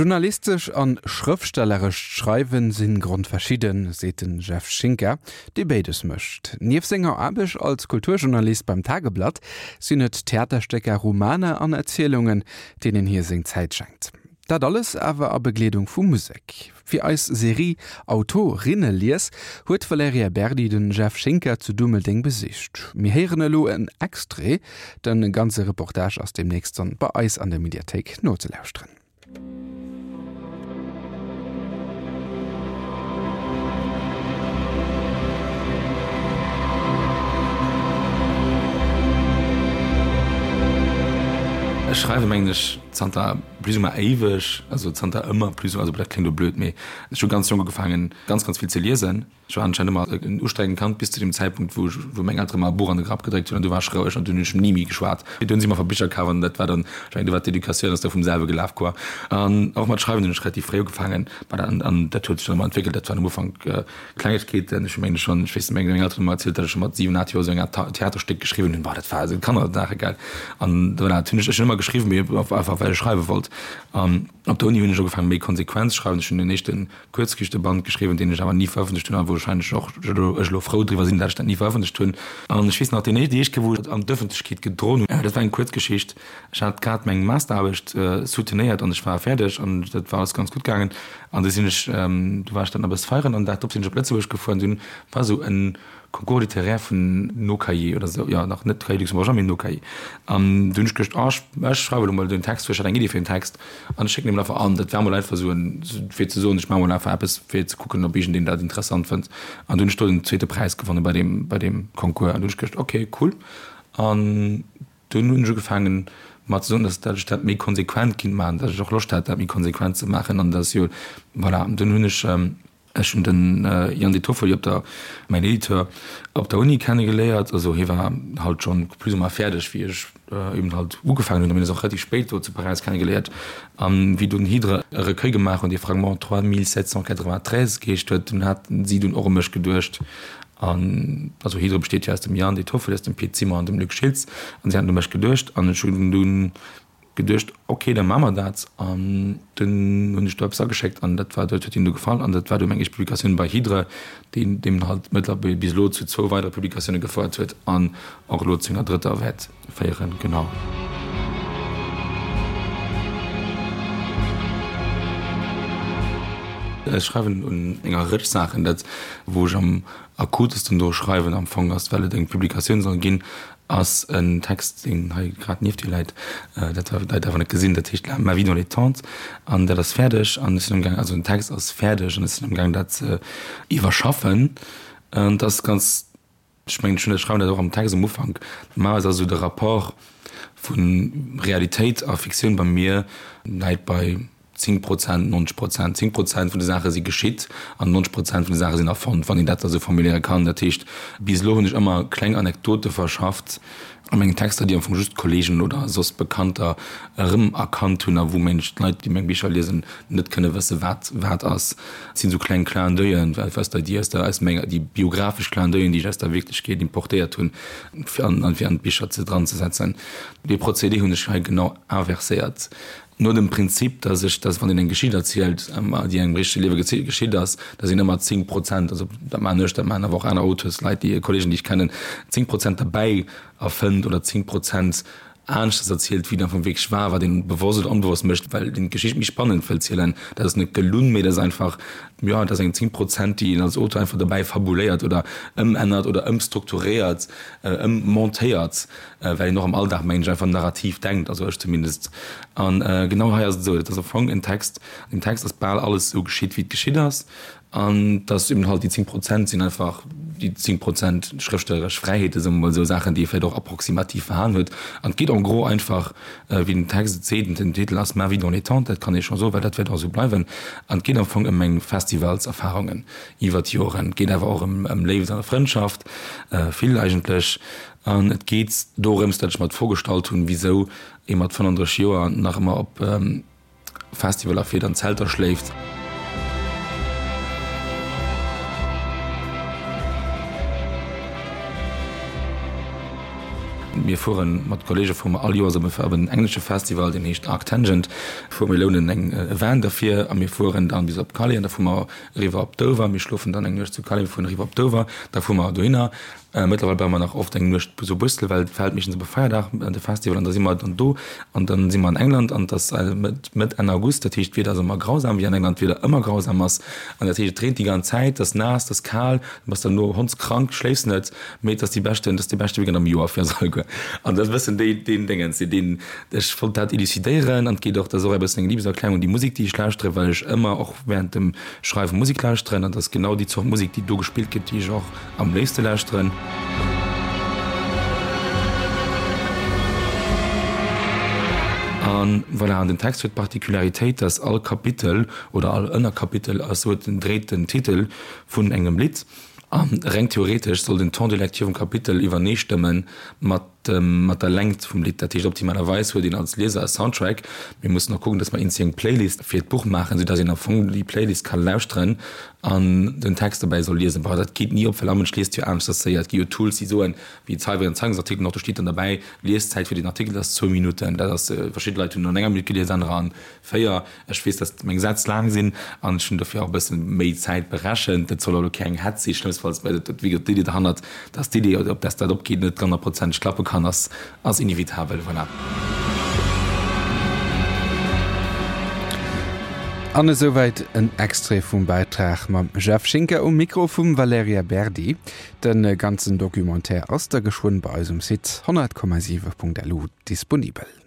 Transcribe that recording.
Journalistesch an schrëftstellerescht Schreiwen sinn grondverschidden, seet den Jeff Schinker, dee béides mécht. Nieft senger Aarbecht als Kulturjournalist beim Tageblatt sinn et Theaterstécker, Romaner an Erzielungen, deenen hie seng Zäit schenkt. Dat alles awer a Begleedung vu Musek. Fir eis Serie Autorinnelies huet d'Valerija Berdi den Jeff Schinker zu Dummeldeng besicht. Mir héieren elo en Extrait, den ganze Reportage ass demnächst dann bei eis an der Mediathéik nozelauschteren. Ech schreiwe mengen ech zanter plus ou moins éiweg, also zanter ëmmer plus ou moins, also dat kléngt elo blöd, mee ech hu ganz jonk ugefaangen ganz ganz vill ze liesen. Ech war anscheinend ëmmer en ustrengend Kand bis zu dem Zäitpunkt, wou ech, wou meng Eltere mer e Buch an de Grapp gedréckt hunn an du war ech roueg an dunn hunn ech ni méi geschwat. Dunn hu si mer einfach Bicher kaf an dat war dann, ech mengen, du war d'Educatioun ass da vum selwe gelaf quoi. An och mat Schreiwen hunn ech relativ fréi ugefaangen, ma an an dat huet sech dann ëmmer entwéckelt. Dat waren am Ufank Klengegkeeten. Ech hu mengen schonn, ech weess net, meng Elteren hu mer erzielt, datt ech scho mat 7, 8 Joer esou eng Art Theaterstéck geschriwwen hunn. Boah, dat war esou Kannersaache gell. An voilà, dat hunn ech, ech hunn ëmmer geschriwwen, mee einfach well ech schreiwe wollt. An op der Uni hunn ech ugefaangen méi konsequent ze schreiwen. Ech hunn den éischten Kuerzgeschichteband geschriwwen, deen ech awer ni verëffentlecht hunn a wou wahrscheinlech och ech elo frou driwwer sinn, dat ech dat ni verëffentlecht hunn. An ech weess nach, deen éischt, déi éischt Kéier, wou ech et an d'Ëffentlechkeet gedroen hunn, dat war eng Kuerzgeschicht. Ech hat grad meng Masteraarbecht soutenéiert an ech war fäerdeg an dat war alles ganz gutt gaangen. An du sinn ech, du war ech dann e bësse feieren an den Dag drop sinn ech op Lëtzebuerg gefuer an dunn war esou e Concours littéraire vun No-Cahiers oder esou, jo nach net Cahiers luxembourgeois, mee No-Cahiers. An du hunn ech geduecht, oh ech, ech schreiwe elo mol den Text, well ech hat eng Iddi fir en Text. An ech schécken dee mol einfach an. Dat war mol einfach esou en, fir ze soen, ech maache mol einfach eppes, fir ze kucken, ob iergendeen dat interessant fënnt. An du hunn ech do den zweete Präis gewonnen bei deem, bei deem Concours. An du hunn ech geduecht, okay, cool. An dunn hunn ech ugefaangen, mer ze soen, dass dat ech dat méi konsequent kinnt maachen, dass ech och Loscht hat, dat méi konsequent ze maachen. An dass jo, voilà. An dunn hunn ech, Ech hunn den Yann De Toffoli op der, mäin Editeur, op der Uni kennegeléiert. Also hie war halt schonn plus ou moins fäerdeg, wéi ech eben halt ugefaangen hunn. A mir hunn eis och relativ spéit do zu Paräis kennegeléiert. A wéi dunn Hydre e Recueil gemaach hunn, dee Fragments 3793 geheescht huet, dunn haten si dunn och u mech geduecht. An also Hydre besteet jo aus dem Yann De Toffoli, aus dem Pit Zimmer an dem Luc Schiltz. An si haten u mech geduecht an ech hunn dunn geduecht, ok, da maache mer dat. An dunn hunn ech do eppes ageschéckt an dat war, dat huet hinnen du gefall an dat war du meng éischt Publikatioun bei Hydre, déi deem halt mëttlerweil bis elo zu zwou weidere Publikatioune gefouert huet an och elo zu enger drëtter wäert féieren. Genau. Ech schreiwen un enger Rëtsch Saachen. Dat, wou ech am akutesten dru schreiwen am Fong ass, well et eng Publikatioun soll ginn, Ass en Text, deen hei grad nieft dir läit, dat d'Leit awer net gesinn, dat heescht Ma vie dans les tentes an dat ass fäerdeg an ech sinn amgaang, also den Text ass fäerdeg an ech sinn amgaang dat ze iwwerschaffen. An dat ass ganz, ech mengen ech hunn dat, ech schreiwen dat och am Text am Ufank, normalerweis ass esou de Rapport vu Realitéit a Fiktioun bei mir läit bei 10 Prozent, 90 Prozent, 10 Prozent vun de Saache si geschitt an 90 Prozent vun de Saache sinn erfonnt, wann een dat da sou formuléiere kann. Dat heescht, bis elo hunn ech ëmmer kleng Anekdote verschafft a mengen Texter, déi am Fong just Kollegen oder soss Bekannter erëmerkannt hunn a wou mensch d'Leit, déi meng Bicher liesen, net kënne wësse wat wat ass. Et sinn esou kleng Clin d'oeillen aus der, déi aus der, aus menger, déi biographesch Clin d'oeillen, déi ech aus der Wierklechkeet importéiert hunn, fir an, fir an d'Bicher ze dranzesetzen. Dee Procédé hunn ech hei genau inverséiert. No dem Prinzip, dass ech, dass wann een eng Geschicht erzielt, déi engem richtege Liewe geschitt ass, dass een ëmmer 10 Prozent, also dat maachen ech, dat maachen awer och aner Auteurs, Leit, déi, Kollegen, déi ech kennen, 10 Prozent derbäi erfënnt oder 10 Prozent aneschters erzielt, wéi et am Fong wierklech war, wat een bewosst oder onbewosst mécht, well een d'Geschicht méi spannend wëll zielen. Dat ass net gelunn, mee dat ass einfach, jo, dat ass eng 10 Prozent, déi een als Auteur einfach derbäi fabuléiert oder ëmännert oder ëmstrukturéiert, ëmmontéiert. Well een och am Alldag, mengen ech, einfach narrativ denkt, also ech zumindest. An genau hei ass et esou, et ass am Fong en Text, an deem Text ass bal alles esou geschitt, wéi et geschitt ass. An et ass eben halt, déi 10 Prozent sinn einfach déi 10 Prozent schrëftstelleresch Fräiheete, soe mer mol esou, Saachen, déi ee vläicht och approximativ verhalen huet. An et geet en gros einfach, wéi den Text et seet, den Titel ass Ma vie dans les tentes, dat kann ee scho soen, well dat wäert och esou bleiwen. An et geet am Fong ëm meng Festivalserfarungen iwwer d'Joren. Et geet awer och ëm Léift a Frëndschaft, vill eigentlech. An et geet dorëms, datt ech mer d'Fro gestallt hunn, wisou ee mat 35 Joer nach ëmmer op Festivaler fiert an Zelter schléift. Mir fueren mat Kollege fuere mer all Joers op e op en englesche Festival, deen heescht Arctangent, fuere mir lounen eng e Van derfir a mir fueren dann bis op Calais an da fuere mer eriwwer op Dover. Mir schlofen dann eng Nuecht zu Calais, mir fueren eriwwer op Dover, da fuere mer dohinner. Mëttlerweil bleiwe mer nach oft eng Nuecht zu Brüssel, well et fält meeschtens op e Feierdag, de Festival, an da si mer dann do an dann si mer an England an et ass Mëtt, Mëtt, Enn August, dat heescht d'Wieder ass ëmmer grausam, wéi an England d'Wieder ëmmer grausam ass an dat heescht et reent déi ganz Zäit, et ass naass, et ass kal, du bass dann no hondskrank, schléifs net, mee et ass déi beschten, et ass dee beschte Weekend am Joer fir eis alleguer an dat ass e bëssen déi, deen Déngens, deen, ech wollt dat elucidéieren an et geet och, dat ass och e bëssen eng Liebeserklärung un déi Musek, déi ech lauschteren, well ech ëmmer och während dem Schreiwe Musek lauschteren an et ass genau déi Zort Musek, déi do gespillt gëtt, déi ech och Am léifste lauschteren. An voilà, an den Text huet d'Particularitéit, dass all Kapitel oder all Ënnerkapitel ass, huet den, dréit den Titel vun engem Lidd. A reng theoretesch soll den Temps de lecture vum Kapitel iwwerneestëmme mat mat der Längt vum Lidd. Dat heescht, optimalerweis huet een als Lieser e Soundtrack. Mir mussen och kucken, dass mer eenzel eng Playlist fir d'Buch maachen, soudass een am Fong déi Playlist ka lauschteren an den Text dobäi soll liesen. Bon, dat geet ni op, well all Mënsch liest jo aneschters séier. Et gi jo Tools, déi soen, wéi d'Zeiwei an Zeitungsartikelen och, do steet dann derbäi, Lieszäit fir den Artikel ass zwou Minutten. Dat ass, verschidde Leit hunn an enger Minutt gelies, anerer an 4. Ech weess, dass meng Sätz laang sinn an ech hunn dofir och e bësse méi Zäit berechent. Dat soll elo keng Hetz sinn, schlëmmstfalls, well et, wéi gesot, d'Iddi derhannert, dass d'Iddi, op dass dat opgeet, net honnertprozenteg klappe kann, ass, ass inevitabel. Voilà. An esouwäit en Extrait vum Bäitrag mam Jeff Schinker um Mikro vum Valerija Berdi. De ganzen Documentaire ass da geschwënn bei eis um Site 100,7.lu disponibel.